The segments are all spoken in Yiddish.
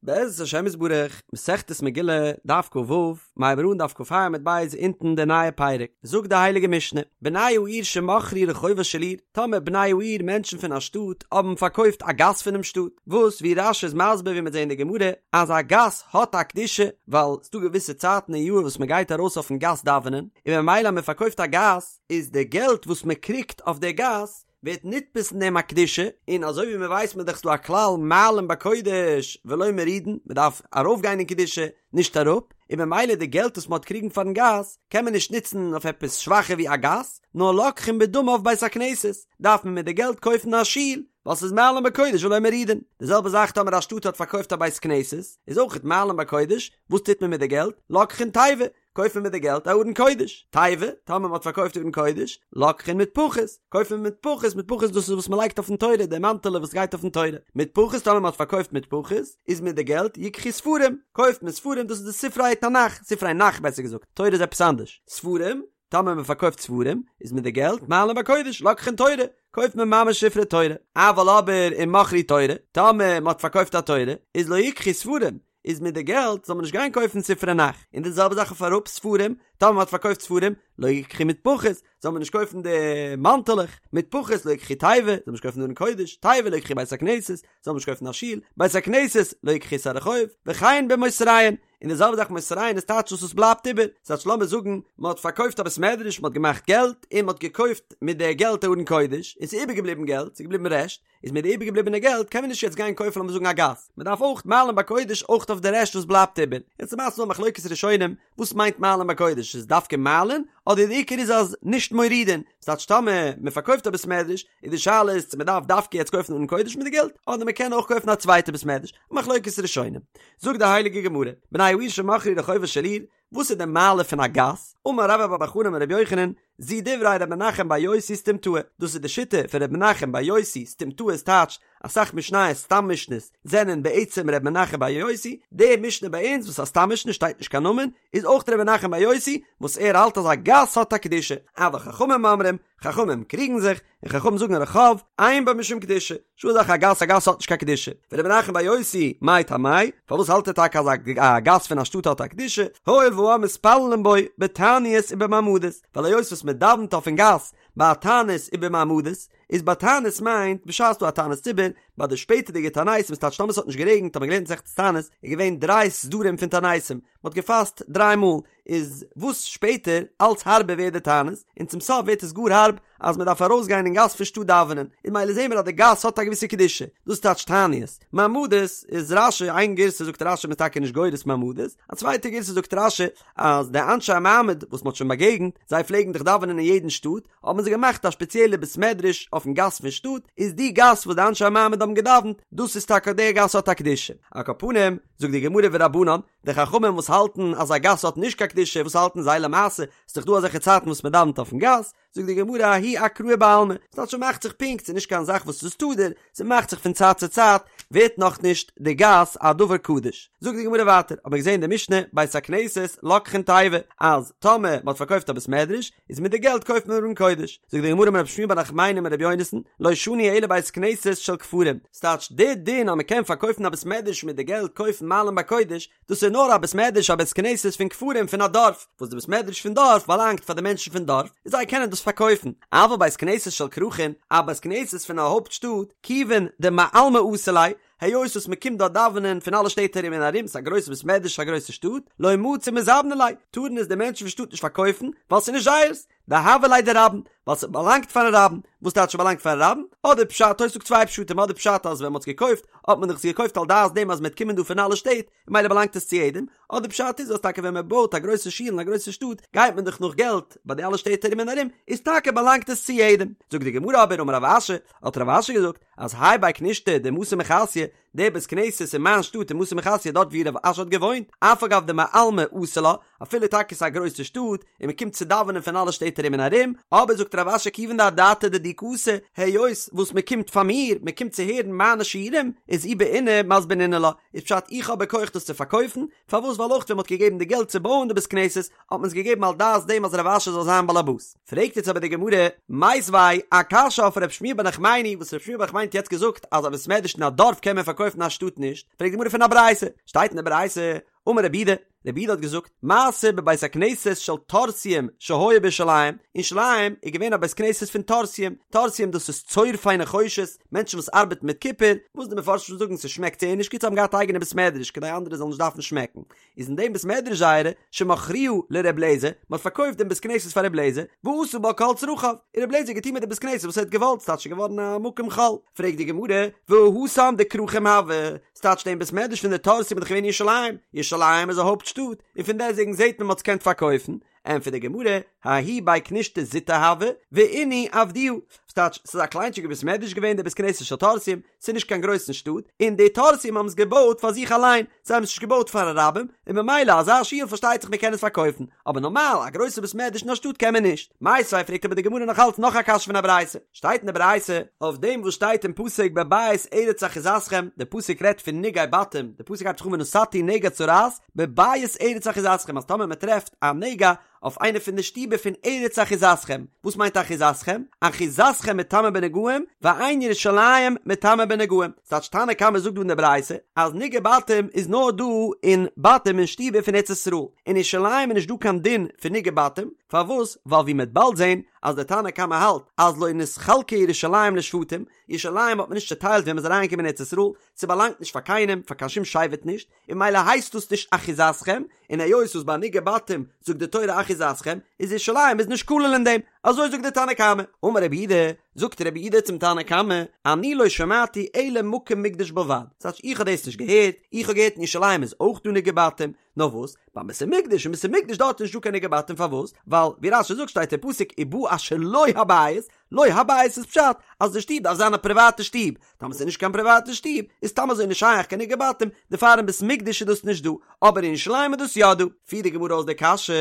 בעזרת השם יתברך, מסכת מגילה, דף כ"ו, מ'הייבט אן דף כ"ה עמוד ב' אונטן די נייע פרק, זאגט די הייליגע משנה, בני העיר שמכרו רחובה של עיר, טאמער בני העיר מענטשן פון א שטאט האבן פארקויפט א גאס פונעם שטאט, וואס ווי רש"י איז מסביר ווי מ'וועט זען אין די גמרא, אז א גאס האט א קדושה, ווייל ס'דא געוויסע צייטן אין יאר וואס מ'גייט ארויס אויפן גאס דאווענען, און ממילא אז מ'פארקויפט א גאס, איז די געלט וואס מ'קריגט אויף די גאס, ווערט נתפס אין דעם א קדושה, און אזוי ווי מען ווייסט מען דאך ס'דא א כלל מעלין בקודש ולא מורידין, מען דארף ארויף גיין אין קדושה נישט אראפ, און ממילא די געלט וואס מען האט קריגן פארן גאס קען מען נישט נוצן אויף עפעס שוואכער ווי א גאס, נאר לוקחין בדמיו בית הכנסת, דארף מען מיט די געלט קויפן א שול, ווייל ס'איז מעלין בקודש ולא מורידין. די זעלבע זאך טאמער א שטאט האט פארקויפט א בית כנסת, איז אויכעט מעלין בקודש, וואס טוט מען מיט די געלט? לוקחין תיבה, קויפט מען מיט די געלט א ארון קודש, תיבה, טאמער מען האט פארקויפט ארון קודש, לוקחין מטפחות, קויפט מען מטפחות, מטפחות דאס איז וואס מען לייגט אויפן תורה, די מאנטעלע וואס גייט אויפן תורה, מטפחות טאמער מען האט פארקויפט מטפחות, איז מיט די געלט יקחו ספרים, קויפט מען ספרים דאס איז די ספרי תנך, ספרי נך בעסער געזאגט, תורה איז עפעס אנדערש, ספרים, טאמער מען פארקויפט ספרים, איז מיט די געלט מעלין בקודש, לוקחין תורה, קויפט מען ממש ספרי תורה, אבל אבער אם מכרו תורה, טאמער מען האט פארקויפט א תורה, איז לא יקחו ספרים, איז מיט די געלט זאל מען נישט גיין קויפן ספרי נך, און די זעלבע זאך אויף אראפ ספרים, טאמער מען האט פארקויפט ספרים, לא יקחו מטפחות, זאל מען נישט קויפן די מאנטעלעך, מטפחות לא יקחו תיבה, זאל מען נישט קויפן ארון קודש, תיבה לא יקחו בית הכנסת, זאל מען נישט קויפן א שול, בית הכנסת לא יקחו את הרחוב, וכן במותריהן, און די זעלבע זאך מותריהן איז טייטש וואס עס בלייבט איבער, ס'טייטש לאמיר זאגן מען האט פארקויפט א בית מדרש, מען האט געמאכט געלט, און מען האט געקויפט מיט די געלט א ארון קודש, און ס'איז איבערגעבליבן געלט, ס'איז געבליבן רעשט, איז מיט די איבערגעבליבענע געלט קען מען נישט יעצט גיין קויפן לאמיר זאגן א גאס, מען דארף אויך מעלין בקודש אויך אויף די רעשט וואס בלייבט איבער, יעצט למעשה איז דא א מחלוקת ראשונים וואס מיינט מעלין בקודש, איז דווקא מעלין אדער די עיקר איז אז נישט מורידין, ס'טייטש טאמער מען פארקויפט א בית מדרש איז די שאלה איז צו מען דארף דווקא יעצט קויפן ארון קודש מיט די געלט אדער מען קען אויך קויפן א צווייטע בית מדרש, א מחלוקת ראשונים. זאגט די הייליגע גמרא, בני העיר שמכרו רחובה של עיר, וואס איז די מעלה פון א גאס? אמר רבה בר בר חנה אמר רבי יוחנן, זו דברי ר' מנחם בר יוסי סתומתאה, דאס איז די שיטה פון ר' מנחם בר יוסי, סתומתאה איז טייטש, אסאך משניות סתם משניות זענען בעצם ר' מנחם בר יוסי, די משנה ביי אונז וואס א סתם משנה שטייט נישט קיין נאמען, איז אויך ר' מנחם בר יוסי, וואס ער האלט אז א גאס האט א קדושה, אבל חכמים אומרים, חכמים קריגן זיך, און חכמים זאגן רחוב, אין בו משום קדושה, נישטא אזא זאך א גאס, א גאס האט נישט קיין קדושה. ור' מנחם בר יוסי, מאי טעמיה, פארוואס האלט ער טאקע אז א גאס פון א שטאט האט א קדושה, הואיל והעם מתפללין בו בתעניות ובמעמדות, ווייל היות וואס מען דאווענט אויפן גאס ביי א תענית ובמעמדות, איז ביי תענית מיינט בשעת ס'דא א תענית ציבור, ביי די שפעטערדיגע תעניתים ס'טייטש טאמער ס'האט נישט גערעגנט האט מען געלערנט מסכת תענית איז געווען דריי סדרים פון תעניתים, מען האט געפאסט דריי מאל, איז וואס שפעטער אלץ הארבער ווערט די תענית, און צום סוף ווערט עס גאר הארב אז מען דארף ארויסגיין אין גאס פון שטאט דאווענען, און ממילא זעהן מיר אז די גאס האט א געוויסע קדושה, דאס טייטש תעניות. מעמדות איז רש"י, איין גירסא זאגט רש"י מ'איז טאקע נישט גורס מעמדות, א צווייטע גירסא זאגט רש"י אז די אנשי המעמד וואס מען האט שוין באגעגנט, זיי פלעגן דאך דאווענען אין יעדן שטאט, האבן זיי געמאכט א שפעציעלע בית מדרש אויפן גאס פון שטאט, איז די גאס וואס די אנשי המעמד האבן געדאווענט, דאס איז טאקע די גאס האט א קדושה. על כל פנים, זאגט די גמרא ורבנן, די חכמים וואס האלטן אז א גאס האט נישט קיין קדושה, וואס האלטן זיי למעשה? ס'איז דאך דא אזעלכע צייטן וואס מען דאווענט אויפן גאס, זאגט די גמרא ההיא אקראי בעלמא, ס'טייטש ס'מאכט זיך פונקט, ס'איז נישט קיין זאך וואס איז תדיר, ס'מאכט זיך פון צייט צו צייט, ווערט נאכנישט די גאס א דבר קדוש. זאגט די גמרא ווייטער, האט מען געזען אין די משנה, בית הכנסת לוקחין תיבה, אז טאמער מען האט פארקויפט א בית מדרש, איז מיט די געלט קויפט מען ארון קודש. זאגט די גמרא אמר רב שמואל בר נחמני אמר רבי יונתן, לא שנו אלא בית כנסת של כפרים, ס'טייטש די דין אז מ'קען פארקויפן א בית מדרש מיט די געלט קויפן מעלין בקודש, דאס איז נאר א בית מדרש א בית כנסת פון כפרים פון א דארף, וואס די בית מדרש פון דארף באלאנגט פאר די מענטשן פון דארף, און זיי קענען דאס פארקויפן, אבל בית כנסת של כרכין, א בית כנסת פון א הויפט שטאט, כיוון דמעלמא אתו ליה, היות וואס מען קומט דארט דאווענען פון אלע שטעט ארום און ארום, ס'איז א גרויסע בית מדרש א גרויסע שטאט, לא מצו מזבני ליה, טארן עס די מענטשן פון שטאט נישט פארקויפן, ווייל ס'איז נישט זייערס, דהוה ליה דרבים, ווייל ס'באלאנגט פארן רבים, וואס טייטש ס'באלאנגט פארן רבים? אדער פשט, תוס' זאגט צוויי פשטים, אדער פשט אז ווען מ'האט עס געקויפט, האט מען דאך עס געקויפט על דעת דעם אז מ'וועט קומען דא פון אלע שטעט, און ממילא באלאנגט עס צו יעדעם, אדער פשט איז אז טאקע ווען מ'בויט א גרויסע שול אין א גרויסע שטאט, גייט מען דאך נאך געלט ביי די אלע שטעט ארום און ארום, איז טאקע באלאנגט עס צו יעדעם. זאגט די גמרא אבער אמר רב אשי, האט רב אשי געזאגט, אז האי בי כנישתא דמתא מחסיא, דער בית כנסת אין מיין שטאט אין מתא מחסיא דארט ווי רב אשי האט געוואוינט, אף על גב דמעלמא אתו לה, אפילו טאקע ס'איז א גרויסע שטאט, און מ'קומט צו דאווענען פון אלע שטעט ארום און ארום, אבער זאגט רב אשי כיוון דאדעתא דידי קאתי, היות וואס מ'קומט פאר מיר, מ'קומט צו הערן מיינע שיעורים, איז אי בעינא מזבנינא לה, איז פשט איך האב בכח דאס צו פארקויפן, פארוואס ווייל אויך ווען מ'האט געגעבן די געלט צו בויען די בית כנסת, האט מען עס געגעבן על דעת דעם אז רב אשי זאל זיין באלעבאס. פרעגט יעצט אבער די גמרא, מיתיבי, א קשיא אויף רב שמואל בר נחמני, וואס רב שמואל בר נחמני האט יעצט געזאגט אז א בית מדרש אין א דארף קען מען פארקויפן. פארקויפן א שטאט נישט? פרעגט די גמרא פון א ברייתא, שטייט אין די ברייתא, אמר רבי יהודה, רבי יהודה האט געזאגט, מעשה בבית הכנסת של טורסיים שהיה בירושלים, אין ירושלים איז געווען א בית כנסת פון טורסיים, טורסיים דאס איז צורפי נחושת, מענטשן וואס ארבעטן מיט קופער, וואס די מפרשים זאגן ס'שמעקט זייער נישט גוט זיי האבן געהאט א אייגענע בית מדרש כדי אנדערע זאלן נישט דארפן שמעקן, איז אין דעם בית מדרש זייערע, שמכרוה לר' אליעזר, מען האט פארקויפט דעם בית כנסת פאר ר' אליעזר, ועשה בה כל צרכיו, און ר' אליעזר האט געטון מיט די בית כנסת וואס ער האט געוואלט, ס'טייטש ס'איז געווארן א מקום חול. פרעגט די גמרא, והא התם דכרכים הוה, ס'טייטש דעם בית מדרש פון די טורסים איז דאך געווען אין ירושלים, ירושלים איז א הויפט שטאט, און פון דעסטוועגן זעט מען מ'האט עס געקענט פארקויפן, ענטפערט די גמרא, ההוא בי כנישתא זוטא הוה, ואינהו עבדוה, ס'טייטש ס'איז א קליינטשיגע בית מדרש געווען דער בית כנסת של טורסים, ס'איז נישט קיין גרויסן שטאט, און די טורסים האבן עס געבויט פאר זיך אליין, זיי האבן עס נישט געבויט פארן רבים, און ממילא אזא שול פארשטייט זיך מ'קען עס פארקויפן, אבער נארמאל א גרויסע בית מדרש אין א שטאט קען מען נישט. מיתיבי פרעגט אבער די גמרא נאך אלץ נאך א קשיא פון א ברייתא, שטייט אין די ברייתא, אויף דעם וואס שטייט אין פסוק בבית ארץ אחוזתכם, די פסוק רעדט פון נגעי בתים, די פסוק הייבט זיך אן ונתתי נגע צרעת בבית ארץ אחוזתכם אז טאמער מען טרעפט א נגע אויף איינע פון די שטיבער פון ארץ אחוזתכם, וואס מיינט אחוזתכם? אחוזתכם מטמא בנגעים ואין ירושלים מטמא בנגעים, ס'טייטש תנא קמא זאגט דא אין די ברייתא אז נגעי בתים איז נאר דא אין בתים אין שטיבער פון ארץ ישראל, אין ירושלים איז נישט דא קיין דין פון נגעי בתים, פארוואס? ווייל ווי מ'עט באלד זען אז דער תנא קמא האלט אז לא נתחלקה ירושלים לשבטים, ירושלים האט מען נישט צעטיילט ווען מ'איז אריינגעקומען אין ארץ ישראל, ס'באלאנגט נישט פאר קיינעם, פאר קיין שום שבט נישט, און ממילא הייסט דאס נישט אחוזתכם, און היות וואס ביי נגעי בתים זאגט די תורה אחוזתכם, איז ירושלים איז נישט כולל אין דעם, אזוי זאגט די תנא קמא. אמר רבי יהודה, זאגט רבי יהודה צום תנא קמא, אני לא שמעתי אלא מקום מקדש בלבד, ס'טייטש איך האב דאס נישט געהערט, איך האב געהערט אין ירושלים איז אויך דא נגעי בתים, נאר וואס, ביים בית המקדש, אין בית המקדש דארט איז נישט דא קיין נגעי בתים פארוואס? ווייל ווי רש"י זאגט שטייט אין פסוק ובא אשר לו הבית, לו הבית איז פשט אז די שטוב דארף זיין א פריוואטע שטוב, טאמער ס'איז נישט קיין פריוואטע שטוב איז סתם אזוי נישט שייך קיין נגעי בתים, דערפאר אין בית מקדש איז דאס נישט דא, אבער אין ירושלים איז דאס יא דא. פירט די גמרא אויס די קשיא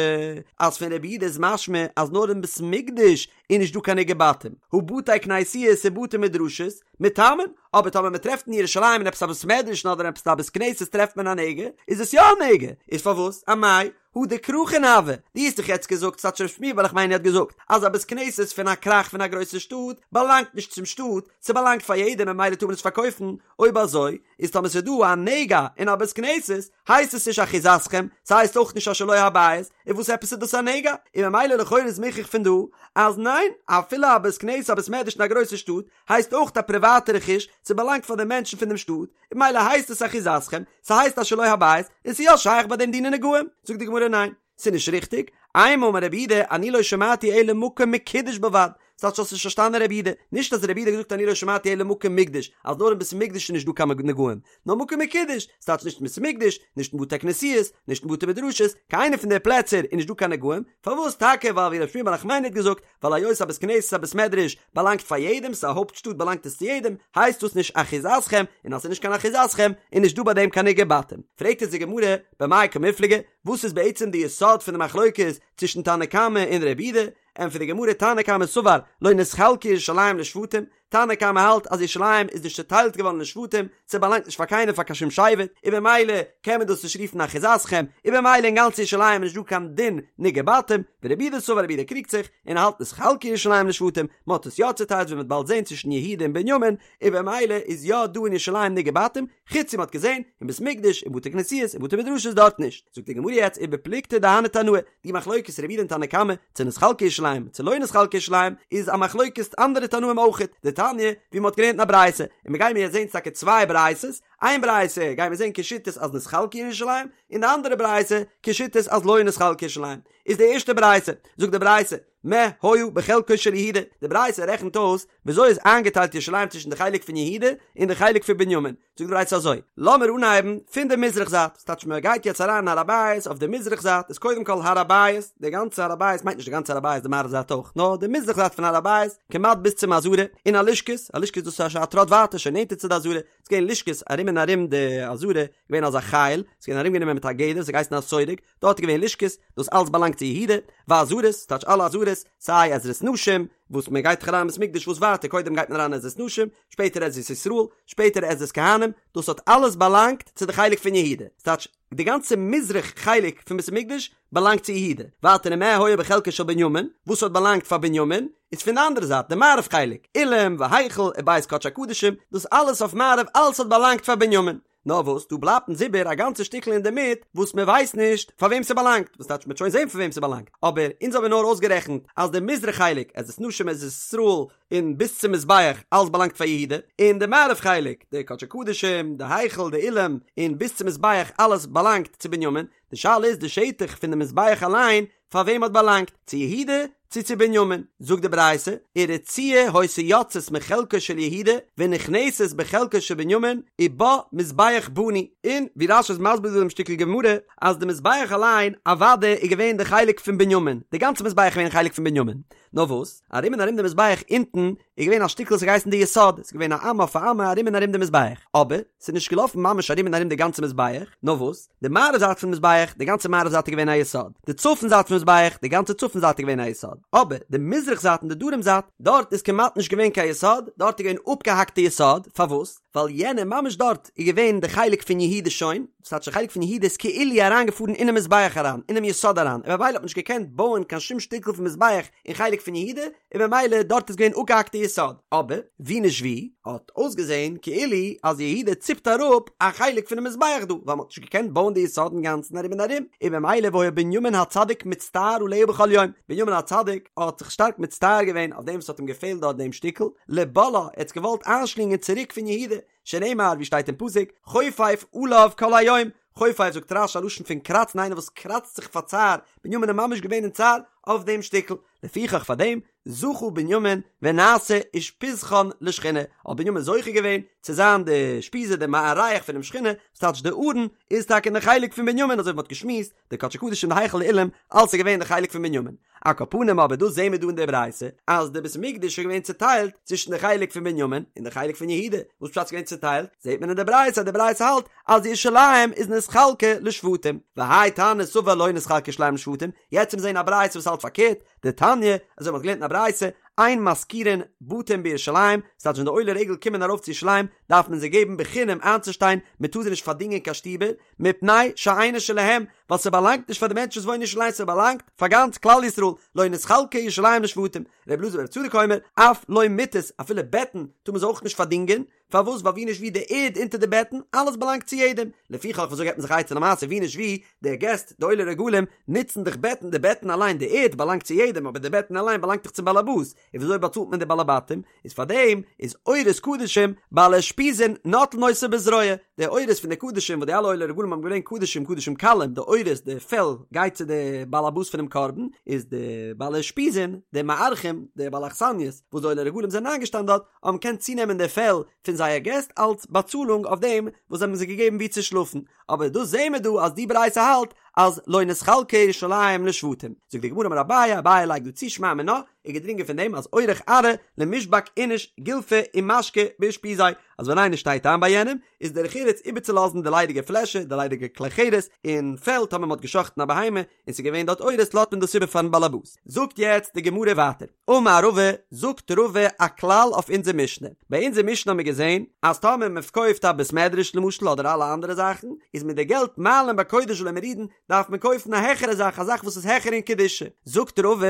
אז פון רבי יהודה איז משמע אז נאר אין בית מקדש איז נישט דא קיין נגעי בתים, הא בתי כנסיות ובתי מדרשות מטמאין, אבער טאמער מען טרעפט אין ירושלים אין עפעס א בית מדרש אדער עפעס א בית כנסת טרעפט מען א נגע, איז עס יא א נגע, איז פארוואס? אמאי? הא דכרכין הוו, דו האסט דאך יעצט געזאגט, ס'טייטש ר' שמואל בר נחמני האט געזאגט, אז א בית כנסת פון א כרך פון א גרויסע שטאט באלאנגט נישט צום שטאט, ס'באלאנגט פאר יעדעם ממילא טאר מען עס פארקויפן, אויב אזוי איז טאמער ס'איז דא א נגע אין א בית כנסת הייסט עס נישט אחוזתכם, ס'הייסט אויך נישט אשר לו הבית, און וואס עפעס איז דאס א נגע? און ממילא לכאורה איז מוכח פון דא אז ניין, אפילו א בית כנסת א בית מדרש אין א גרויסע שטאט הייסט אויך א פריוואטע רכוש, ס'באלאנגט פאר די מענטשן פון דעם שטאט, און ממילא הייסט עס אחוזתכם, ס'הייסט אשר לו הבית, און ס'איז יא שייך ביי דעם דיני נגעים. זאגט די גמרא ניין, ס'איז נישט ריכטיג, אימא אמר רבי יהודה אני לא שמעתי אלא מקום מקודש בלבד, ס'טייטש האסט נישט פארשטאנען רבי יהודה, נישט אז רבי יהודה האט געזאגט אני לא שמעתי אלא מקום מקדש, אז נאר אין בית מקדש איז נישט דא קיין נגעים, נאר מקום מקודש, ס'טייטש נישט אין בית מקדש, נישט אין בתי כנסיות, נישט אין בתי מדרשות, קיין איינע פון די פלעצער איז נישט דא קיין נגעים, פארוואס טאקע ווייל ווי רבי שמואל בר נחמני האט געזאגט, ווייל היות א בית כנסת א בית מדרש באלאנגט פאר יעדעם, ס'איז א הויפט שטאט באלאנגט עס צו יעדעם, הייסט דאס נישט אחוזתכם, און אז ס'איז נישט קיין אחוזתכם, איז נישט דא ביי דעם קיין נגעי בתים. פרעגט אונז די גמרא, במאי קמיפלגי, וואס איז בעצם די יסוד פון די מחלוקת צווישן תנא קמא און רבי יהודה? ענטפערט די גמרא, תנא קמא סבר לא נתחלקה ירושלים לשבטים, תנא קמא האלט אז ירושלים איז נישט צוטיילט געווארן לשבטים, ס'באלאנגט נישט פאר קיינעם פאר קיין שום שבט, און במילא קען מען דאס נישט רופן אחוזתכם, און במילא אין גאנץ ירושלים איז נישט דא קיין דין נגעי בתים, ורבי יהודה סבר רבי יהודה קריגט זיך, און האלט נתחלקה ירושלים לשבטים, מ'האט עס יא צוטיילט ווי מ'וועט באלד זען צווישן יהודה און בנימין, און במילא איז יא דא אין ירושלים נגעי בתים, חוץ ווי מ'האט געזען אין בית מקדש אין בתי כנסיות און בתי מדרשות דארט נישט. זאגט די גמרא יעצט ובפלוגתא דהני תנאי, די מחלוקת רבי יהודה און תנא קמא, צו נתחלקה ירושלים צו לא נתחלקה ירושלים, איז א מחלוקת אנדערע תנאים אויכעט, דתניא, ווי מ'האט געלערנט אין א ברייתא, און מ'גיימיר יעצט זען טאקע צוויי ברייתות, איין ברייתא גיימיר זען כשיטת אז נתחלקה ירושלים, און די אנדערע ברייתא כשיטת אז לא נתחלקה ירושלים. איז די ערשטע ברייתא, זאגט די ברייתא, מה היה בחלקו של יהודה, די ברייתא רעכנט אויס וויאזוי איז איינגעטיילט ירושלים צווישן די חלק פון יהודה און די חלק פון בנימין, זאגט די ברייתא אזוי, לאמיר אנהייבן פון די מזרח זייט, ס'טייטש מען גייט יעצט אריין אין הר הבית אויף די מזרח זייט איז קודם כל הר הבית, די גאנצע הר הבית מיינט נישט די גאנצע הר הבית די מערב זייט אויך, נאר די מזרח זייט פון הר הבית כמעט ביז צום עזרה, און הלשכות, הלשכות דאס איז א טראט ווייטער שוין נענטער צו די עזרה, ס'איז געווען לשכות ארום און ארום די עזרה, געווען אזא חיל, ס'איז געווען ארומגענומען מיט א גדר, ס'האט געהייסן א סורג, דארט איז געווען לשכות, דאס אלץ באלאנגט צו יהודה, ועזרות, ס'טייטש אלע עזרות, סיי עזרת נשים, וואס מען גייט דאך אריין אין בית מקדש וואס ווייטער קודם גייט מען אריין עזרת נשים, שפעטער עזרת ישראל, שפעטער עזרת כהנים, דאס האט אלעס באלאנגט צו די חלק פון יהודה, ס'טייטש די גאנצע מזרח חלק פון בית המקדש באלאנגט צו יהודה, ווייטער ומה היה בחלקו של בנימין, וואס האט באלאנגט פאר בנימין, איז פון די אנדערע זייט די מערב חלק, אולם והיכל ובית קדשי הקדשים, דאס אלעס אויף מערב אלעס האט באלאנגט פאר בנימין. נאר וואס, דא בלייבט אונז איבער א גאנצע שטיקל אינדערמיט וואס מען ווייסט נישט פאר וועם ס'באלאנגט, וואס טייטש מ'וועט שוין זען פאר וועם ס'באלאנגט, אבער אונז האבן נאר אויסגערעכנט אז די מזרח חלק, עזרת נשים עזרת ישראל, און ביז צום מזבח, אלעס באלאנגט פאר יהודה, און די מערב חלק, די קדשי קדשים, די היכל, די אולם, און ביז צום מזבח, אלעס באלאנגט צו בנימין, די שאלה איז די שטח פון די מזבח אליין, פאר וועם האט באלאנגט, צו יהודה צו צו בנימין? זאגט די ברייתא, ורצועה היתה יוצאת מחלקו של יהודה ונכנסת בחלקו של בנימין ובה מזבח בנוי, און ווי רש"י איז מסביר דא דעם שטיקל גמרא, אז די מזבח אליין אוודאי איז געווען די חלק פון בנימין, די גאנצע מזבח איז געווען חלק פון בנימין, נאר וואס, ארום און ארום די מזבח אונטן איז געווען א שטיקל וואס האט געהייסן די יסוד, ס'איז געווען א אמה אויף א אמה ארום און ארום די מזבח, אבער ס'איז נישט געלאפן ממש ארום און ארום די גאנצע מזבח, נאר וואס, די מערב זייט פון מזבח, די גאנצע מערב זייט איז געווען א יסוד, די צפון זייט פון מזבח, די גאנצע צפון זייט איז געווען א יסוד, אבער די מזרח זייט און די דרום זייט, דארט איז כמעט נישט געווען קיין יסוד, דארט איז געווען אפגעהאקטע יסוד, פארוואס? ווייל יענע ממש דארט איז געווען די חלק פון יהודה שוין, דאס טייטש די חלק פון יהודה איז כאילו אריינגעפארן אינעם מזבח אריין, אינעם יסוד אריין, און ממילא האט מען נישט געקענט בויען קיין שום שטיקל פון מזבח אין חלק פון יהודה, און ממילא דארט איז געווען אפגעהאקטע יסוד, אבער ווי נישט ווי האט אויסגעזען כאילו אז יהודה ציפט אראפ א חלק פונעם מזבח דא, ווייל מען האט נישט געקענט בויען די יסוד אינגאנצן ארום און ארום, און ממילא והיה בנימין הצדיק מצטער עליה בכל יום, בנימין הצדיק האט זיך שטארק מצטער געווען אויף דעם וואס האט אים געפעלט דארט דעם שטיקל, לבלעה, ער האט עס געוואלט איינשלינגען צוריק פון יהודה, שנאמר ווי שטייט אין פסוק, חופף עליו כל היום, חופף זאגט רש"י א לשון פון קראצן איינער וואס קראצט זיך פאר צער, בנימין איז ממש געווען אין צער אויף דעם שטיקל, לפיכך פאר דעם זכה בנימין ונעשה אושפיזכן לשכינה, האט בנימין זוכה געווען צו זיין די אושפיזא די מארח פונעם שכינה, וואס טייטש די ארון איז טאקע אין די חלק פון בנימין אזוי ווי מ'האט געשמועסט, די קדשי קדשים די היכל אולם אלס איז געווען די חלק פון בנימין. על כל פנים אבער דאס זעהן מיר דא אין די ברייתא אז די בית המקדש איז געווען צוטיילט צווישן די חלק פון בנימין און די חלק פון יהודה, וואס פשט ס'איז געווען צוטיילט? זעהט מען אין די ברייתא אז די ברייתא האלט אז ירושלים איז נתחלקה לשבטים, והאי תנא סבר לא נתחלקה ירושלים לשבטים, יעצט וועט מען זעהן א ברייתא וואס האלט פארקערט, דתניא, אזוי ווי מ'האט געלערנט אין א ברייתא, אין משכירין בתים בירושלים, ס'טייטש ווען די עולי רגל קומען ארויף צו ירושלים דארף מען זיי געבן בחינם איינצושטיין, מ'טאר זיי נישט פארדינגען קיין שטיבער, מפני שאינה שלהם, ווייל ס'באלאנגט נישט פאר די מענטשן וואס וואוינען אין ירושלים, ס'באלאנגט פאר גאנץ כלל ישראל, לא נתחלקה ירושלים לשבטים, ר' אלעזר בר' צדוק אומר, אף לא מטות, אפילו בעטן טאר מען זיי אויך נישט פארדינגען, פארוואס ווייל ווי נישט ווי די ערד אונטער די בעטן, אלעס באלאנגט צו יעדעם, לפיכך וויאזוי געבט מען זיך א עצה למעשה ווי נישט ווי, די געסט, די עולי רגלים, נוצן דאך בעטן, די בעטן אליין, די ערד באלאנגט צו יעדעם, אבער די בעטן אליין באלאנגט דאך צום באלעבאס, און וויאזוי באצאלט מען די בעלי בתים? איז פאר דעם איז עורות קדשים בעלי אושפיזין נוטלין אותו בזרוע, די עורות פון די קדשים וואס די אלע עולי רגלים האבן געברענגט קדשים קדשים קלים, די עורות די פעל גייט צו די בעל הבית פונעם קרבן, איז די בעלי אושפיזין די מארחים די בעלי אכסניות וואס די עולי רגלים זענען איינגעשטאנען דארט האבן געקענט צונעמען די פעל פון זייער געסט אלס באצאלונג אויף דעם וואס זיי האבן זיי געגעבן וואו צו שלאפן, אבער דאס זעהן מיר דא אז די ברייתא האלט אז לא נתחלקה ירושלים לשבטים, זאגט די גמרא אמר אביי, אביי לייגט דא צו שמע מינה, איז געדרינגען פון דעם אז אורח ארעא למישבק איניש גולפא ומשקא באושפיזיה, אז ווען איינער שטייט איין ביי יענעם, איז דרך ארץ איבערצולאזן די ליידיגע פלעשער, די ליידיגע כלי חרס, און פעל, טאמער מען האט גע'שחט'ן א בהמה, און ס'איז געווען דארט עורות לאזט מען דאס איבער פארן באלעבאס. זאגט יעצט די גמרא ווייטער, אמר רבא, זאגט רבא א כלל אויף אונזער משנה, ביי אונזער משנה האבן מיר געזען אז טאמער מען פארקויפט א בית מדרש למשל אדער אלע אנדערע זאכן, איז מיט די געלט מעלין בקודש ולא מורידין, דארף מען קויפן א העכערע זאך, א זאך וואס איז העכער אין קדושה. זאגט רבא,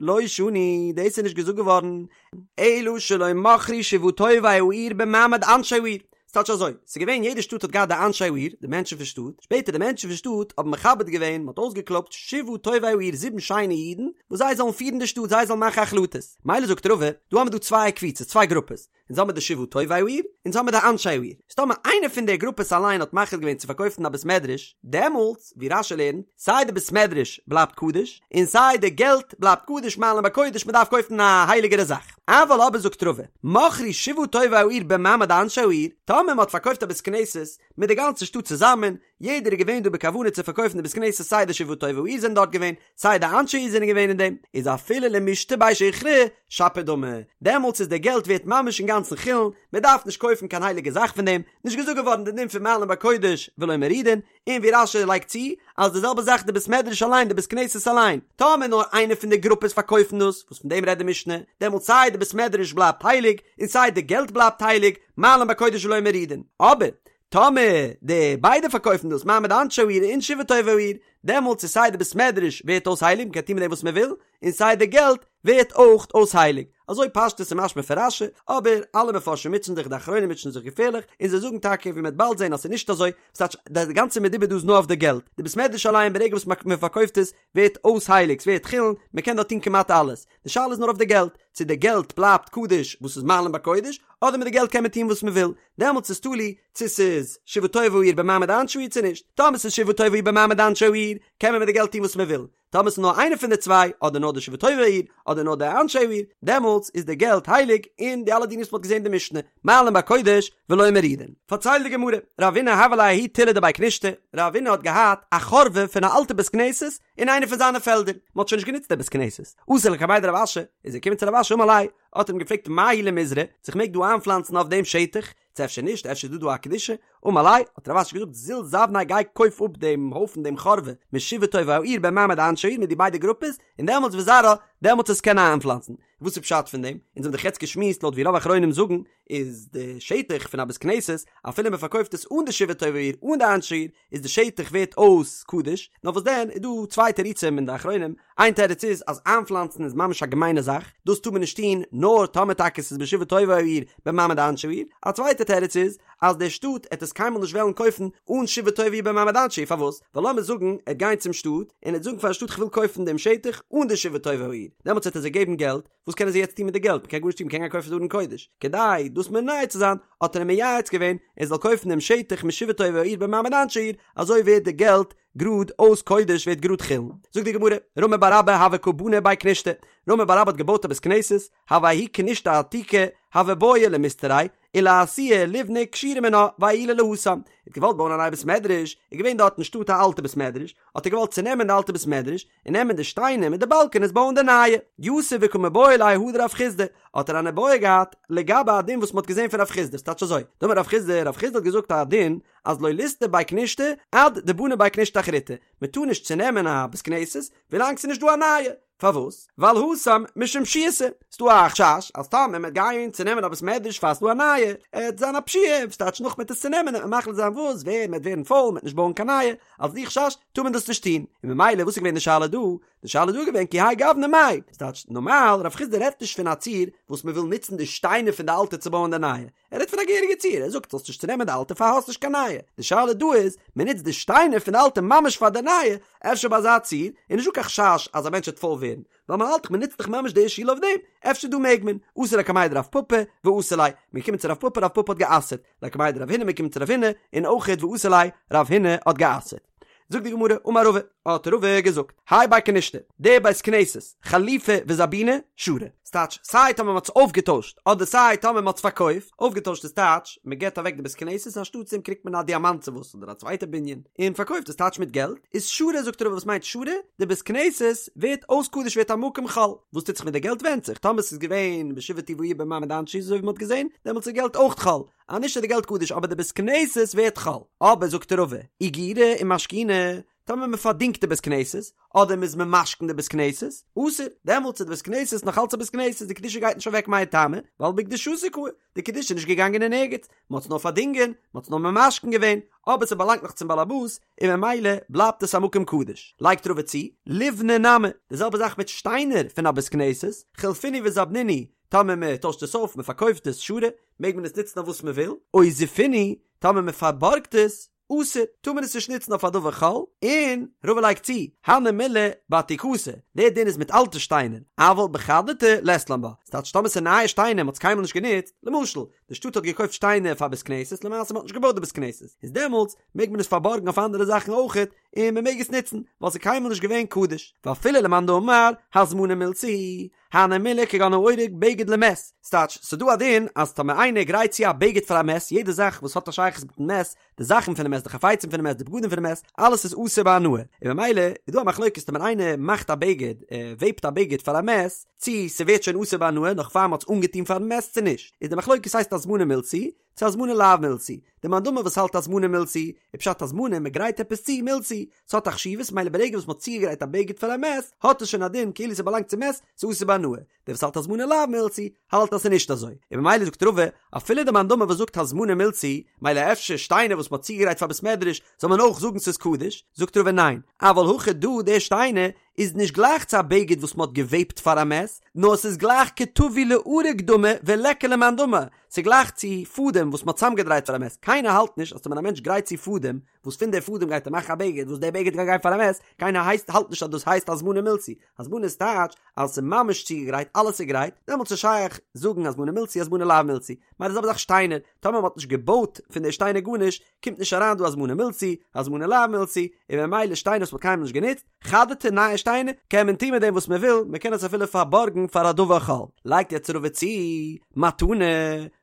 לא שנו, דאס איז נישט געזאגט געווארן, אלא שלא מכרו שבעה טובי העיר במעמד אנשי העיר. ס'טייטש אזוי, ס'איז געווען יעדע שטאט האט געהאט די אנשי העיר, די מענטשן פון שטאט, שפעטער די מענטשן פון שטאט האבן מכבד געווען, מ'האט אויסגעקלויבט שבעה טובי העיר זיבן שיינע אידן, וואס זיי זאלן פירן די שטאט, זיי זאלן מאכן החלטות. מילא זאגט רבא, דא האמיר דא צוויי קבוצות, צוויי גרופעס, אונז האמיר די שבעה טובי העיר, אונז האמיר די אנשי העיר. איז טאמער איינער פון די גרופעס אליין האט מחליט געווען צו פארקויפן א בית מדרש, דעמאלטס, ווי רש"י לערנט, סיי די בית מדרש בלייבט קדוש, און סיי די געלט בלייבט קדוש מעלין בקודש, מען דארף קויפן א הייליגערע זאך. אבל אבער זאגט רבא, מכרו שבעה טובי העיר במעמד אנשי העיר, טאמער מען האט פארקויפט א בית כנסת מיט די גאנצע שטאט צוזאמען, יעדער איז געווען דא בכוונה צו פארקויפן די בית כנסת סיי די שבעה טובי העיר זענען דארט געווען, סיי די אנשי העיר זענען געווען אין דעם, איז אפילו למישתא ביה שיכרא שפיר דמי, דעמאלטס איז די געלט ווערט ממש אינגאנצן חולין, מען דארף נישט קויפן קיין הייליגע זאך פון דעם, נישט געזאגט געווארן די דין פון מעלין בקודש ולא מורידין, און ווי רש"י לייגט צו, אז די זעלבע זאך די בית מדרש אליין די בית כנסת אליין, טאמער נאר איינע פון די גרופעס פארקויפן דאס, וואס פון דעם רעדט די משנה, דעמאלטס סיי די בית מדרש בלייבט הייליג, און סיי די געלט בלייבט הייליג, מעלין בקודש ולא מורידין. אבער, טאמער די ביידע פארקויפן דאס, מעמד אנשי העיר און שבעה טובי העיר, דעמאלטס איז סיי די בית מדרש ווערט אויס הייליג, מ'קען טון מיט דעם וואס מ'וויל, און סיי די געלט ווערט אויך אויס הייליג. אזוי פשטות איז משמע פון רש"י, אבער אלע מפרשים מוטשען זיך, די אחרונים מוטשען זיך געפערליך, און זיי זאגן טאקע ווי מ'וועט באלד זען אז ס'איז נישט אזוי, ס'טייטש די גאנצע מדובר דא איז נאר אויף די געלט, די בית מדרש אליין ברגע וואס מ'פארקויפט עס ווערט אויס הייליג, ס'ווערט חולין, מ'קען דארט טון כמעט אלעס, די שאלה איז נאר אויף די געלט, צו די געלט בלייבט קדוש וואס איז מעלין בקודש, אדער מיט די געלט קען מען טון וואס מ'וויל, דעמאלטס איז תלוי צו ס'איז שבעה טובי העיר במעמד אנשי העיר צו נישט, טאמער ס'איז שבעה טובי העיר במעמד אנשי העיר קען מען מיט די געלט טון וואס מ'וויל, טאמער ס'איז נאר איינע פון די צוויי, אדער נאר די שבעה טובי העיר, אדער נאר די אנשי העיר, דעמאלטס איז די געלט הייליג, און די אלע דינים וואס מ'האט געזען אין די משנה, מעלין בקודש ולא מורידין. פארציילט די גמרא, רבינא הוה ליה ההוא תילי דבי כנישתא, רבינא האט געהאט א חורבה פון א אלטע בית כנסת אין איינע פון זיינע פעלדער, מ'האט שוין נישט גענוצט די בית כנסת, אתא לקמיה דרב אשי, איז ער געקומען צו רב אשי אמר ליה, האט ער אים געפרעגט מהו למיזרע, צו כ'מעג דא איינפלאנצן אויף דעם שטח, צו אפשר נישט, אפשר איז דא דא א קדושה, אמר ליה, האט רב אשי געזאגט, זיל זבניה גיי קויף אפ דעם הויפן דעם חורבה, משבעה טובי העיר במעמד אנשי העיר מיט די ביידע גרופעס, און דעמאלטס וזרעה, דעמאלטס וועסט קענען איינפלאנצן. וואס איז פשט פון דעם? אונז האבן דאך יעצט געשמועסט לויט ווי רוב אחרונים זאגן, איז די שטח פון א בית כנסת, אפילו מען פארקויפט עס אן די שבעה טובי העיר אן די אנשי העיר, איז די שטח ווערט אויס קדוש, נאר וואס דען איז דא צוויי תירוצים אין די אחרונים, איין תירוץ איז אז איינפלאנצן איז ממש א געמיינע זאך, דאס טאר מען נישט טון נאר טאמער טאקע ס'איז בשבעה טובי העיר במעמד אנשי העיר, א צווייטע תירוץ איז אז די שטאט עט עס קיינמאל נישט וועלן קויפן אן שבעה טובי העיר במעמד אנשי העיר, פארוואס? ווייל לאמיר זאגן ער עט גיין צום שטאט און עט זאגן פארן שטאט כ'וויל קויפן דעם שטח אן די שבעה טובי העיר, דעמאלטס וועט ער זיי געבן געלט, וואס קענען זיי יעצט טון מיט די געלט? מ'קען גארנישט טון, מ'קען גיין קויפן די ארון קודש. כדי דאס מונע צו זיין, האט ער אים מייעץ געווען ער זאל קויפן דעם שטח משבעה טובי העיר במעמד אנשי העיר, אזוי ווערט די געלט גראד אויס קודש ווערט גראד חולין. זאגט די גמרא, רמי בר אבא הוה קא בני בי כנישתא, רמי בר אבא האט געבויט א בית כנסת, הוה ההיא כנישתא עתיקא, הוה בעי למיסתריה, ולאתויי ליבני כשורא מינה ועיולי להתם. ער האט געוואלט בויען א נייע בית מדרש, איז געווען דארט אין שטאט א אלטע בית מדרש, האט ער געוואלט צונעמען די אלטע בית מדרש, און נעמען די שטיינער מיט די באלקענעס בויען די נייע. יתיב וקא מיבעיא ליה הא דרב חסדא, האט ער אן איבעיא געהאט לגבי א דין וואס מ'האט געזען פון רב חסדא, ס'טייטש אזוי, דאמר רב חסדא, רב חסדא האט געזאגט א דין אז לא ליסתור בי כנישתא עד דבני בי כנישתא אחריתי, מ'טאר נישט צונעמען א בית כנסת ווילאנג ס'איז נישט דא א נייע, פארוואס? ווייל התם משום פשיעותא, ס'דא א חשש אז טאמער מ'עט גיין צונעמען א בית מדרש פאר ס'דא א נייע, עט זיין א פשיעה, ס'טייטש נאך מ'עט עס צונעמען עט מען מחליט זיין וואס ווער מ'עט ווערן פויל מ'עט נישט בויען קיין נייע, אלס די חשש טאר מען דאס נישט טון, און ממילא וואס איז געווען די שאלה דא? די שאלה דא איז געווען כי האי גוונא מאי, ס'טייטש נארמאל רב חסדא רעדט נישט פון א ציור וואס מ'וויל נוצן די שטיינער פון די אלטע צו בויען די נייע, ער רעדט פון א געהעריגע ציור, ער זאגט זאלסט נישט צונעמען די אלטע פאר האסט נישט קיין נייע, די שאלה דא איז, מען נוצט די שטיינער פון די אלטע ממש פאר די נייע, אפשר ביי אזא ציור איז נישטא קיין חשש אז א מענטש וועט פויל ווערן, ווייל מען האלט דאך מען נוצט דאך ממש די שול אויף דעם, אפשר דא מעג מען, אתו לקמיה דרב פפא ואסר ליה, מען געקומען צו רב פפא רב פפא האט גע'אסר'ט, לקמיה דרב הונא מען געקומען צו רב הונא, און אויכעט ואסר ליה, רב הונא האט גע'אסר'ט. זאגט די גמרא, אמר רבא, האט רבא געזאגט, האי בי כנישתא, די בית כנסת, חלופי וזבוני, שרי. ס'טייטש, סיי טאמער מ'האט עס אויפגעטוישט, אדער סיי טאמער מ'האט עס פארקויפט, אויפגעטוישט איז טייטש, מ'געט אוועק די בית כנסת אנשטאטס דעם קריגט מען א דיאמאנט צו וואס אדער א צווייטע בנין, און פארקויפט איז טייטש מיט געלט, איז שרי זאגט רבא וואס מיינט שרי, די בית כנסת ווערט אויס קדוש ווערט א מקום חול, וואס טוט זיך מיט די געלט ווענדט זיך, טאמער ס'איז געווען בשבעה טובי העיר במעמד אנשי אזוי ווי מ'האט געזען, דעמאלטס איז געלט אויך חול, אז נישט איז די געלט קדוש אבער די בית כנסת ווערט חול. אבער זאגט רבא, אגירי ומשכוני, טאמער מען פארדינגט די בית כנסת, אדער מען איז ממשכן די בית כנסת, אסור, דעמאלטס איז די בית כנסת נאך אלץ א בית כנסת, די קדושה גייט נישט אוועק מאי טעמא, ווייל בקדושתה קאי, די קדושה איז נישט געגאנגען אין ערגעץ, מען האט עס נאר פארדינגען, מען האט עס נאר ממשכן געווען, אבער ס'באלאנגט נאך צום בעלעבאס, און ממילא בלייבט עס א מקום קדוש. לייגט רבא צו, ליבני נמי, די זעלבע זאך מיט שטיינער פון א בית כנסת, חלפינהו וזבנינהו, טאמער מען טוישט עס אויף, מען פארקויפט עס, שרי, מעג מען עס נוצן אויף וואס מען וויל, או זיפינהו, טאמער מען פארבארגט עס, אסור, טאר מען עס נישט נוצן אויף א דבר חול, און רבא לייגט צו, הני מילי בעתיקתא, דער דין איז מיט אלטע שטיינער, אבל בחדתא לית לן בה, ס'טייטש טאמער ס'איז נייע שטיינער, מ'האט עס קיינמאל נישט גענוצט, למשל, די שטאט האט געקויפט שטיינער פאר בית כנסת, למעשה מ'האט נישט געבויט די בית כנסת, איז דעמאלטס מעג מען עס פארבארגן אויף אנדערע זאכן אויכעט, און מען מעג עס נוצן, ווייל ס'איז קיינמאל נישט געווען קדוש, ואפילו למאן דאמר הזמנה מילתא היא, הני מילי כגון האורג בגד למת, ס'טייטש, ס'דא א דין אז טאמער איינער גרייט צו א בגד פאר א מת, יעדע זאך וואס האט א שייכות מיטן מת, די זאכן פונעם מת, די חפצים פונעם מת, די בגדים פונעם מת, אלעס איז אסור בהנאה, און במילא איז דא א מחלוקת טאמער איינער מאכט א בגד, ער וועבט א בגד פאר א מת, צי ס'ווערט שוין אסור בהנאה נאך פאר מ'האט עס אנגעטון פארן מת צו נישט, איז די מחלוקת הייסט הזמנה מילתא היא, צו הזמנה לאו מילתא היא, די מאן דאמר וואס האלט הזמנה מילתא היא, איז פשט הזמנה מ'גרייט עפעס צו מילתא היא, ס'האט א חשיבות מילא ברגע וואס מ'האט צוגעגרייט א בגד פאר א מת, האט עס שוין א דין כאילו ס'באלאנגט צום מת, ס'איז אסור בהנאה. דער וואס האלט הזמנה לאו מילתא היא, האלט אז ס'איז נישט אזוי. און ממילא זאגט רבא, אפילו די מאן דאמר וואס זאגט הזמנה מילתא היא, מילא אפשר שטיינער וואס מ'האט צוגעגרייט פאר בית מדרש, זאל מען אויך זאגן ס'איז קדוש, זאגט רבא ניין, אבל הכא דא די שטיינער איז נישט גלייך צו א בגד וואס מ'האט געוועבט פאר א מת, נאר ס'איז גלייך כטווי לאריג דמי וליכא למאן דאמר, ס'איז גלייך צו פאדעם וואס מ'האט צוזאמגעדרייט פאר א מת, קיינער האלט נישט אז טאמער א מענטש גרייט צו פאדעם, וואס פון די פאדעם גייט ער מאכן א בגד, וואס די בגד גייט גיין פאר א מת, קיינער הייסט האלט נישט אז דאס הייסט הזמנה מילתא היא, הזמנה איז טייטש אז ס'איז ממש צוגעגרייט, אלעס איז גרייט, דעמאלטס איז שייך זאגן הזמנה מילתא היא הזמנה לאו מילתא היא, מילא די זעלבע זאך שטיינער, טאמער מ'האט נישט געבויט פון די שטיינער גארנישט, קומט נישט אריין דא הזמנה מילתא היא, הזמנה לאו מילתא היא, און ממילא שטיינער וואס מ'האט קיינמאל נישט גענוצט, חדתי נייע שטיינער, קען מען טון מיט דעם וואס מ'וויל, מ'קען עס אפילו פארבארגן פאר א דבר חול. לייגט יעצט רבא צו, מתנה,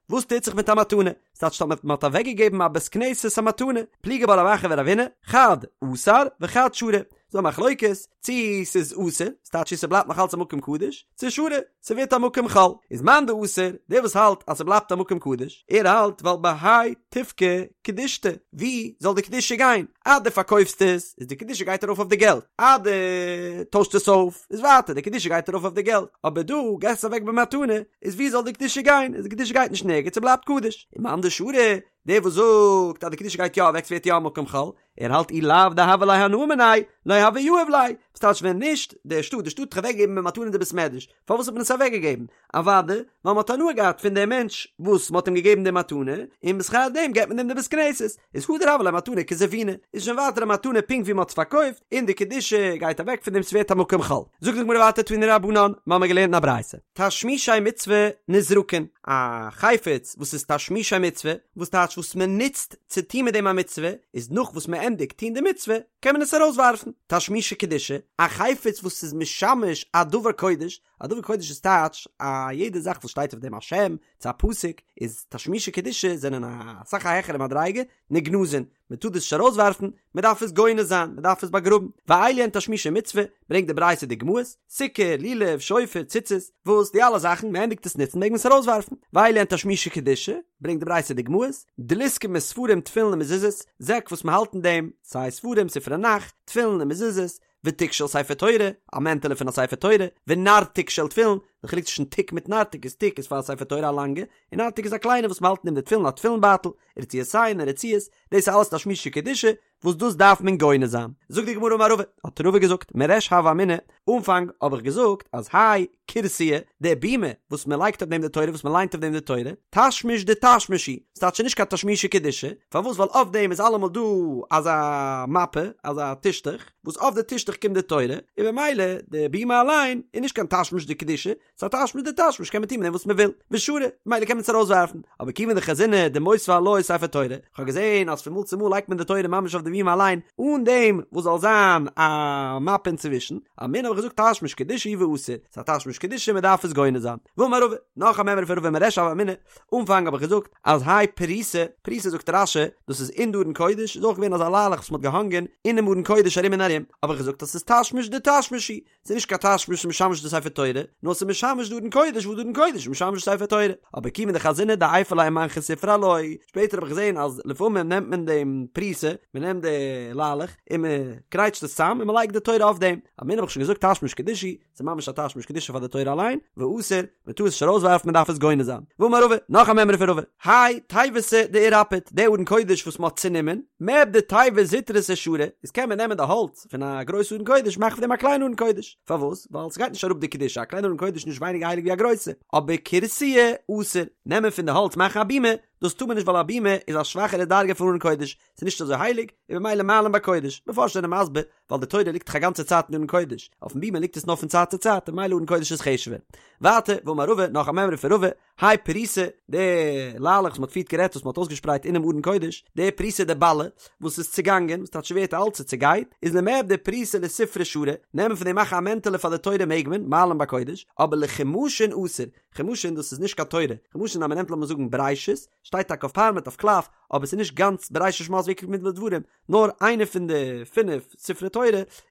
וואס טוט זיך מיט א מתנה? ס'טייטש אז מ'האט אוועקגעגעבן א בית כנסת א מתנה, פליגי בה רב אחא ורב הונא, חד אסר וחד שרי, ס'דא א מחלוקת צי ס'איז אסור, ס'טייטש צי ס'בלייבט נאך אלץ א מקום קדוש, צו שרי, ס'ווערט א מקום חול. איז מאן דאסר, דער וואס האלט אז ס'בלייבט א מקום קדוש, ער האלט ווייל בהאי תפקע קדושתיה, ווי זאל די קדושה גיין? אז דו פארקויפסט עס, איז די קדושה גייט ארויף אויף די געלט, אז דו טוישסט עס אויף, איז ווייטער די קדושה גייט ארויף אויף די געלט, אבער דא געסט עס אוועק במתנה, איז ווי זאל די קדושה גיין? איז די קדושה גייט נישט נערגעץ, ס'בלייבט קדוש. און מאן דשרי, דער וואס זאגט אז די קדושה גייט יא אוועק ס'ווערט יא א מקום חול, ער האלט אי לאו דהוה ליה הנאה מיניה, לא הוה יהיב ליה, וואס טייטש ווען נישט די שטאט, די שטאט האט אוועקגעגעבן במתנה די בית מדרש, פארוואס האט מען עס אוועקגעגעבן? אוודאי ווייל מ'האט הנאה געהאט פון דעם מענטש וואס מ'האט אים געגעבן די מתנה, און בשכר דעם געבט מען אים די בית כנסת, איז הדר הוה ליה מתנה כזבונה, איז שוין ווייטער א מתנה פונקט ווי מ'האט עס פארקויפט, און די קדושה גייט אוועק פון דעם ס'ווערט א מקום חול. זאגט די גמרא ווייטער תנו רבנן, מ'האמיר געלערנט אין א ברייתא, תשמישי מצוה נזרקין, א חפץ וואס איז תשמישי מצוה, וואס טייטש וואס מ'נוצט צו טון מיט דעם א מצוה, איז נאך וואס מ'ענדיגט טון די מצוה, קען מען עס ארויסווארפן. תשמישי קדושה, א חפץ וואס איז משמש א דבר קודש, א דבר קודש איז טייטש א יעדע זאך וואס שטייט אויף דעם א שם צו א פסוק איז תשמישי קדושה זענען א סאך א העכערע מדריגה נגנזין מען טאר דאס נישט ארויסווארפן מען דארף עס גונז זיין מען דארף עס באגראבן ואלו הן תשמישי מצוה ברענגט די ברייתא דוגמאות סוכה לולב שופר ציצית וואס די אלע זאכן מען ענדיגט עס נוצן מעג מען עס ארויסווארפן ואלו הן תשמישי קדושה ברענגט די ברייתא דוגמאות דליסקי מיט ספרים תפילין און מזוזות זעק וואס מען האלט אין דעם סיי ספרים ספרי נ"ך תפילין און מזוזות ותיק של ספר תורה, א מענטעלע פון א ספר תורה, ונרתיק של תפילין, די חילוק צווישן תיק מיט נרתיק איז תיק איז פאר א ספר תורה א לאנגע, און נרתיק איז א קליינע וואס מ'האלט אין דעם די תפילין א תפילין בייטל, ורצועותיהן און רצועות, דאס איז אלעס תשמישי קדושה, וואס דאס דארף מען גונז זיין. זאגט די גמרא אמר רבא, האט רבא געזאגט, מריש הוה אמינא, אנפאנג האב איך געזאגט אז האי כורסיא, די בימה וואס מען לייגט אויף דעם די תורה, וואס מען ליינט אויף דעם די תורה, תשמיש דתשמיש הוא, ס'טייטש נישט קיין תשמישי קדושה, פארוואס ווייל אויף דעם איז אלעמאל דא אזא מפה, אזא טישטוך, וואס אויף די טישטוך קומט די תורה, און במילא די בימה אליין איז נישט קיין תשמיש דקדושה, ס'איז א תשמיש דתשמיש קען מען טון מיט דעם וואס מען וויל, ושרי, ממילא קען מען עס ארויסווארפן, אבער כיוון דחזינא דמותבי עילויה ספר תורה, כ'האב געזען אז פון מאל צו מאל לייגט מען די תורה ממש אויף די בימה אליין אן דעם וואס זאל זיין א מפה אינצווישן, אמינא האב איך געזאגט תשמיש קדושה הוא ואסור, ס'איז א תשמיש קדושה מען דארף עס גונז זיין. ואמר רבא, נאך א מימרא פון רבא מריש הוה אמינא, אנפאנג האב איך געזאגט אז האי פריסה, פריסה זאגט רש"י, דאס איז אין די ארון קודש, איז אויך געווען אזא ליילעך וואס מ'האט געהאנגען אינעם ארון קודש ארום און ארום, האב איך געזאגט אז ס'איז תשמיש דתשמיש הוא, ס'איז נישט קיין תשמיש שמשמש די ספר תורה, נאר ס'איז משמש די ארון קודש וואס די ארון קודש איז משמש די ספר תורה. אבער כיוון דחזינא דעייפי ליה ומנחי ספרא עילויה, שפעטער האב איך געזען אז לפעמים נעמט מען דעם פריסה, מ'נעמט די ליילעך און מ'קרייטשט עס צאם און מ'לייגט די תורה אויף דעם. אמינא האב איך שוין געזאגט תשמיש קדושה הוא, ס'איז ממש א תשמיש קדושה פאר די תורה אליין, ואסור, מען טאר עס נישט ארויסווארפן מען דארף עס גונז זיין. ואמר רבא, נאך א מימרא פון רבא, האי תיבתא דאירפט, די ארון קודש וואס מען האט צונומען, מיעבדא תיבה זוטרתא שרי, איז קען מען נעמען די האלץ פון א גרויסע ארון קודש מאכן פון דעם א קליינע ארון קודש, פארוואס? ווייל ס'גייט נישט אראפ די קדושה, א קליינע ארון קודש איז נישט ווייניגער הייליג ווי א גרויסע, אבער כורסיא אסור, נעמען פון די האלץ מאכן א בימה, דאס טאר מען נישט ווייל א בימה איז א שוואכערע דרגה פון ארון קודש, ס'איז נישט אזוי הייליג, און במילא מעלין בקודש, מפרשים זענען מסביר. ווייל די תורה ליגט דאך א גאנצע צייט אין ארון קודש, אויפן בימה ליגט עס נאר פון צייט צו צייט און ממילא ארון קודש איז חשוב'ער. ווייטער, ואמר רבא, נאך א מימרא פון רבא, האי פריסא, די ליילעך וואס מ'האט פריערט גערעדט וואס מ'האט אויסגעשפרייט אינעם ארון קודש, די פריסא דבלי, וואס איז צעגאנגען, וואס טייטש ווערט אלט, ס'צעגייט, איז למעבדא פריסא לספרא שרי, נעמען פון דעם מאכן א מענטעלע פאר די תורה מעג מען, מעלין בקודש, אבער לחומשין אסור, חומשין דאס איז נישט קיין תורה, חומשין אז מ'נעמט לאמיר זאגן בראשית, שטייט טאקע אויף פארמעט אויף קלף, אבער ס'איז נישט גאנץ בראשית שמות ויקרא במדבר דברים, נאר איינע פון די פינף ספרי תורה,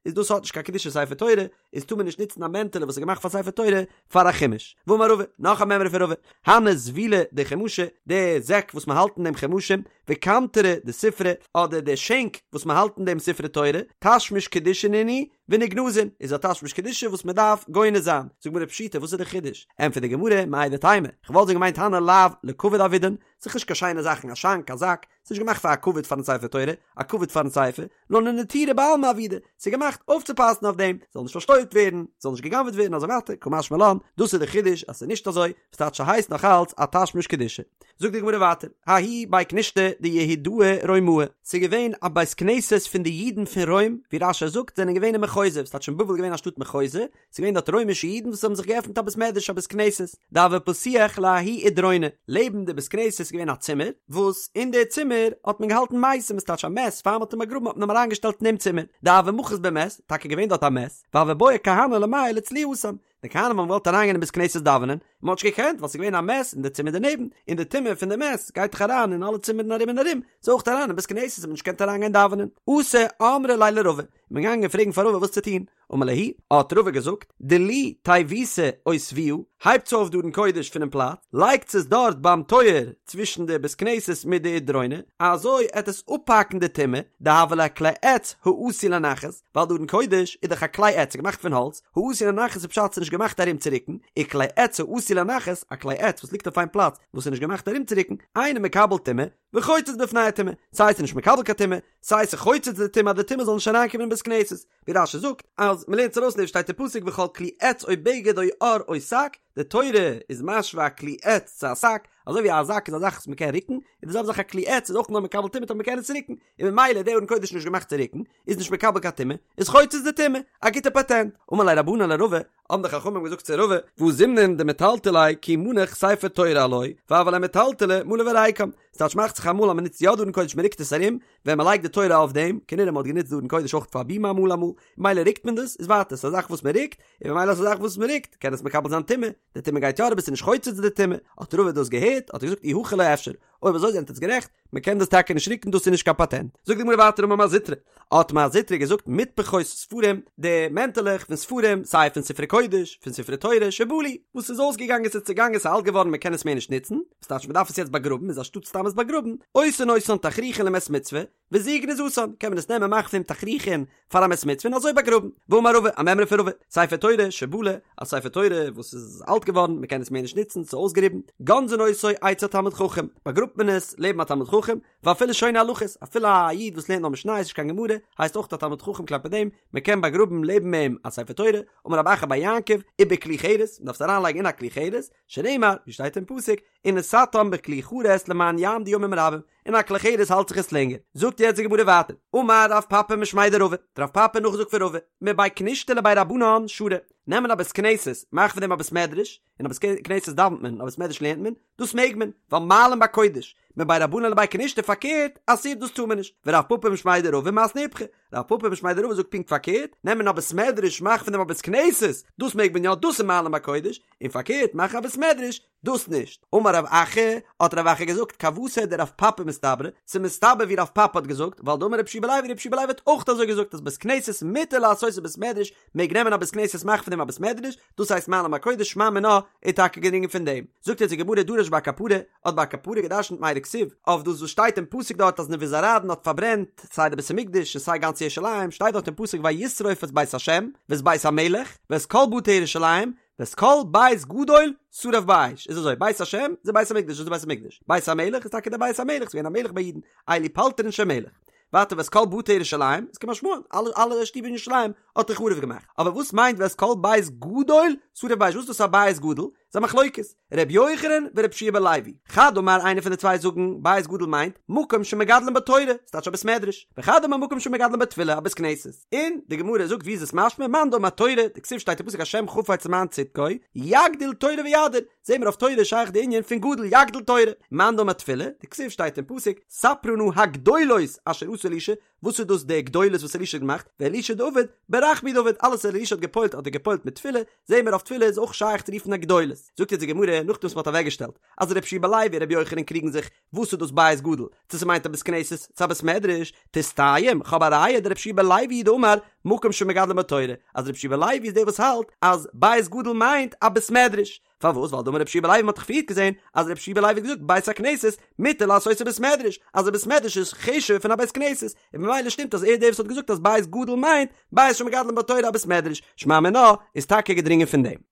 איז דאס האט נישט קיין קדושת ספר תורה, איז טאר מען נישט נוצן א מענטעלע וואס איז געמאכט פאר ספר תורה פאר א חומש. ואמר רבא, נאך א מימרא פון רבא, הני זבילי דחומשי, די זעק וואס מען האלט אין דעם חומשים, וקמטרי דספרי, אדער די שענק וואס מען האלט אין דעם ספרי תורה, תשמיש קדושה נינהו, ונגנזין, איז א תשמיש קדושה וואס מען דארף גונז זיין. זאגט די גמרא פשיטא, וואס איז די חידוש? ענטפערט די גמרא, מהו דתימא, כ'וואלט ווען געמיינט הני לאו לכבוד עבידן, ס'איז נישט קיין שיינע זאכן, א שאנק, א זאק, ס'איז נישט געמאכט פאר א כבוד פארן ספר תורה, א כבוד פארן ספר, נאר לנטורי בעלמא עבידי, ס'איז געמאכט אויפצופאסן אויף דעם, ס'זאל נישט פארשטויבט ווערן, ס'זאל נישט גע'גנב'עט ווערן אזוי ווייטער, קא משמע לן, דאס איז די חידוש אז ס'איז נישט אזוי, וואס טייטש ס'הייסט נאך אלץ א תשמיש קדושה. זאגט די גמרא ווייטער, ההוא בי כנישתא דיהודאי רומאי, ס'איז געווען א בית כנסת פון די אידן פון רוים, ווי רש"י זאגט זענען געווען אין מחוזא, וואס טייטש אין בבל איז געווען א שטאט מחוזא, ס'איז געווען דארט רוימישע אידן וואס האבן זיך געעפנט א בית מדרש א בית כנסת, דהוה פתיח לההוא אידרונא, לעבן די בית כנסת איז געווען א צימער, וואס אין די צימער האט מען געהאלטן מתים, עס טייטש א מת, פאר מ'האט אים באגראבן האט מען אים אריינגעשטעלט אין דעם צימער, דהוה מחית ביה מת, טאקע געווען דארט א מת, והוו בעו כהני למיעל לצלויי התם, די כהנים האבן געוואלט אריינגיין אין בית כנסת דאווענען, און מ'האט נישט געקענט ווייל ס'איז געווען א מת אין די צימער דערנעבן, און די טומאה פון די מת גייט דאך אריין אין אלע צימערן ארום און ארום, ס'איז אויך אריין אין בית כנסת האט מען נישט געקענט אריינגיין דאווענען. אתו אמרו ליה לרבא, מ'איז געגאנגען פרעגן פאר רבא וואס צו טון, אמר להו, האט רבא געזאגט, דלו תיבותא אותבוה, הייבטס אויף די ארון קודש פונעם פלאץ, לייגטס עס דארט ביים טויער צווישן די בית כנסת מיט די אידרונא, אזוי עט עס אפהאקן די טומאה, דהוה ליה כלי עץ העשוי לנחת, ווייל די ארון קודש איז דאך א כלי עץ, געמאכט פון האלץ, העשוי לנחת איז פשט ס'איז נישט געמאכט ארומצורוקן, וכלי עץ העשוי לנחת, א כלי עץ וואס ליגט אויף איין פלאץ וואס איז נישט געמאכט ארומצורוקן, אינו מקבל טומאה, וחוצץ בפני הטומאה, סיי ס'איז נישט מקבל קיין טומאה, סיי ס'חוצץ די טומאה אז די טומאה זאל נישט אריינקומען אין בית כנסת, ווי רש"י זאגט אז מ'לערנט עס ארויס פון דעם שטייט אין פסוק וכל כלי עץ או בגד או עור או שק, די תורה איז משווה א כלי עץ צו א שק, אזוי ווי א זאק איז א זאך וואס מ'קען רוקן, און די זעלבע זאך א כלי עץ איז אויך נאר מקבל טומאה אויב מ'קען עס רוקן, און ממילא איז די ארון קודש נישט געמאכט צו רוקן, איז נישט מקבל קיין טומאה, איז חוצץ די טומאה, א גוטע פאטענט. אמרו ליה רבנן לרבא, האבן די חכמים געזאגט צו רבא, והא זימנין דמטלטלי כי מנח ספר תורה עילויה, והוה ליה מטלטלא מלא וריקם, ס'טייטש מאכט זיך אמאל אז מ'נוצט יא די ארון קודש מ'רוקט עס ארום, ווען מ'לייגט די תורה אויף דעם, כנראה מ'האט גענוצט די ארון קודש אויך פאר בימה אמאל אמאל, ממילא רוקט מען דאס, איז ווייטער ס'איז א זאך וואס מ'רוקט, און ממילא איז א זאך וואס מ'רוקט, קען עס מקבל זיין טומאה, די טומאה גייט יא אריבער ס'איז נישט חוצץ די טומאה, האט רבא דאס געהערט, האט ער געזאגט אי הכי לא אפשר, אויב אזוי זענט עטס גערעכט, מען קען דאס טאקע נישט רוקן דאס איז נישט קיין פאטענט. זאגט די גמרא ווייטער אמר מר זוטרא, האט מר זוטרא געזאגט מטפחות ספרים, די מענטעלעך פון ספרים, סיי פון ספרי קודש, פון ספרי תורה, שבלו, וואס איז אויסגעגאנגען ס'איז צעגאנגען ס'איז אלט געווארן מען קען עס מער נישט נוצן, וואס טייטש מען דארף עס יעצט באגראבן איז אנשטאט סתם עס באגראבן, עושין אותן תכריכין למת מצוה, וזו גניזתן, קען מען עס נעמען מאכן פון תכריכין פאר א מת מצוה און אזוי באגראבן. ואמר רבא, א מימרא פון רבא, ספר תורה שבלה, א ספר תורה וואס איז אלט געווארן, מען קען עס מער נישט נוצן, ס'איז אויסגעריבן, גונזין אותו אצל תלמיד חכם, באגראבט מען עס לעבן א תלמיד חכם, ואפילו שונה הלכות, אפילו א איד וואס לערנט נאר משניות נישט קיין גמרא, הייסט אויך א תלמיד חכם כלפי דעם, מען קען באגראבן לעבן אים א ספר תורה, אמר רב אחא בר יעקב, ובכלי חרס, מען דארף עס אריינלייגן אין א כלי חרס, שנאמר, ווי שטייט אין פסוק, ונתתם בכלי חרס למען יעמדו ימים רבים, אין א כלי חרס האלט זיך עס לענגער. זאגט יעצט די גמרא ווייטער, אמר רב פפא משמיה דרבא, האט רב פפא נאכגעזאגט פון רבא, מבי כנישתא לבי רבנן שרי, נעמען א בית כנסת, מאכן פון דעם א בית מדרש, אין א בית כנסת דאווענט מען, אין א בית מדרש לערנט מען, דאס מעג מען, ווייל מעלין בקודש, מבי רבנן לבי כנישתא פארקערט, אסור דאס טאר מען נישט, ורב פפא משמיה דרבא מתני איפכא, רב פפא משמיה דרבא זאגט פונקט פארקערט, נעמען א בית מדרש מאכן פון דעם א בית כנסת, דאס מעג מען יא, דאס איז מעלין בקודש, און פארקערט מאכן א בית מדרש, דאס נישט. אמר רב אחא, האט רב אחא געזאגט, כוותיה דרב פפא מסתברא, ס'איז מסתבר ווי רב פפא האט געזאגט, ווייל דאמר רבי יהושע בן לוי, רבי יהושע בן לוי האט אויך אזוי געזאגט אז בית כנסת מותר לעשותו בית מדרש, מעג נעמען א בית כנסת מאכן פון דעם א בית מדרש, דאס הייסט מעלין בקודש שמע מינה איז טאקע געדרינגען פון דעם. זאגט אונז די גמרא דרש בר קפרא, האט בר קפרא געדרשנט מאי דכתיב, אויף דאס וואס שטייט אין פסוק דארט אז נבוזראדן האט פארברענט סיי די בית המקדש און סיי גאנץ ירושלים, שטייט דארט אין פסוק וישרוף את בית השם ואת בית המלך ואת כל בתי ירושלים, ואת כל בית גדול שרף באש, איז אזוי, בית השם איז די בית המקדש, דאס איז די בית המקדש, בית המלך איז טאקע די בית המלך, ס'איז געווען א מלך ביי אידן, אלו פלטרין של מלך. ווייטער ואת כל בתי ירושלים, איז כמשמען, אלע אלע שטיבער אין ירושלים האט ער חרוב געמאכט. אבער וואס מיינט ואת כל בית גדול שרף באש וואס איז דאס א בית גדול? ס'איז א מחלוקת, ר' יוחנן ור' יהושע בן לוי. חד אמר איינער פון די צוויי זאגן בית גדול מיינט מקום שמגדלין בו תורה, ס'טייטש א בית מדרש, וחד אמר מקום שמגדלין בו תפילה א בית כנסת. און די גמרא זאגט ווי איז עס משמע מאן דאמר תורה, דכתיב שטייט אין פסוק השם חפץ למען צדקו, יגדיל תורה ויאדיר, זעהן מיר אויף תורה איז שייך די ענין פון גדול יגדיל תורה, מאן דאמר תפילה, דכתיב שטייט אין פסוק ספרה נא הגדולות אשר עשה אלישע, וואס איז דאס די גדולות וואס אלישע האט געמאכט, ואלישע דעבד ברחמי דעבד, אלעס וואס אלישע האט געפועלט האט ער געפועלט מיט תפילה, זעהן מיר אויף תפילה איז אויך שייך צו רופן א גדולות. זאגט יעצט די גמרא, נאכדעם וואס מ'האט אוועקגעשטעלט אז ר' יהושע בן לוי און ר' יוחנן קריגן זיך וואס איז דאס בית גדול, צו ס'מיינט א בית כנסת צו א בית מדרש, תסתיים, כ'האב א ראיה דר' יהושע בן לוי הוא דאמר מקום שמגדלין בו תורה, אז ר' יהושע בן לוי איז דער וואס האלט אז בית גדול מיינט א בית מדרש, פארוואס? ווייל דאמר ר' יהושע בן לוי מ'האט דאך פריערט געזען אז ר' יהושע בן לוי האט געזאגט בית הכנסת מותר לעשותו בית מדרש, אז א בית מדרש איז חשוב'ער פון א בית כנסת, און ממילא שטימט אז ער איז דער וואס האט געזאגט אז בית גדול מיינט בית שמגדלין בו תורה א בית מדרש, שמע מינה איז טאקע געדרינגען פון דעם.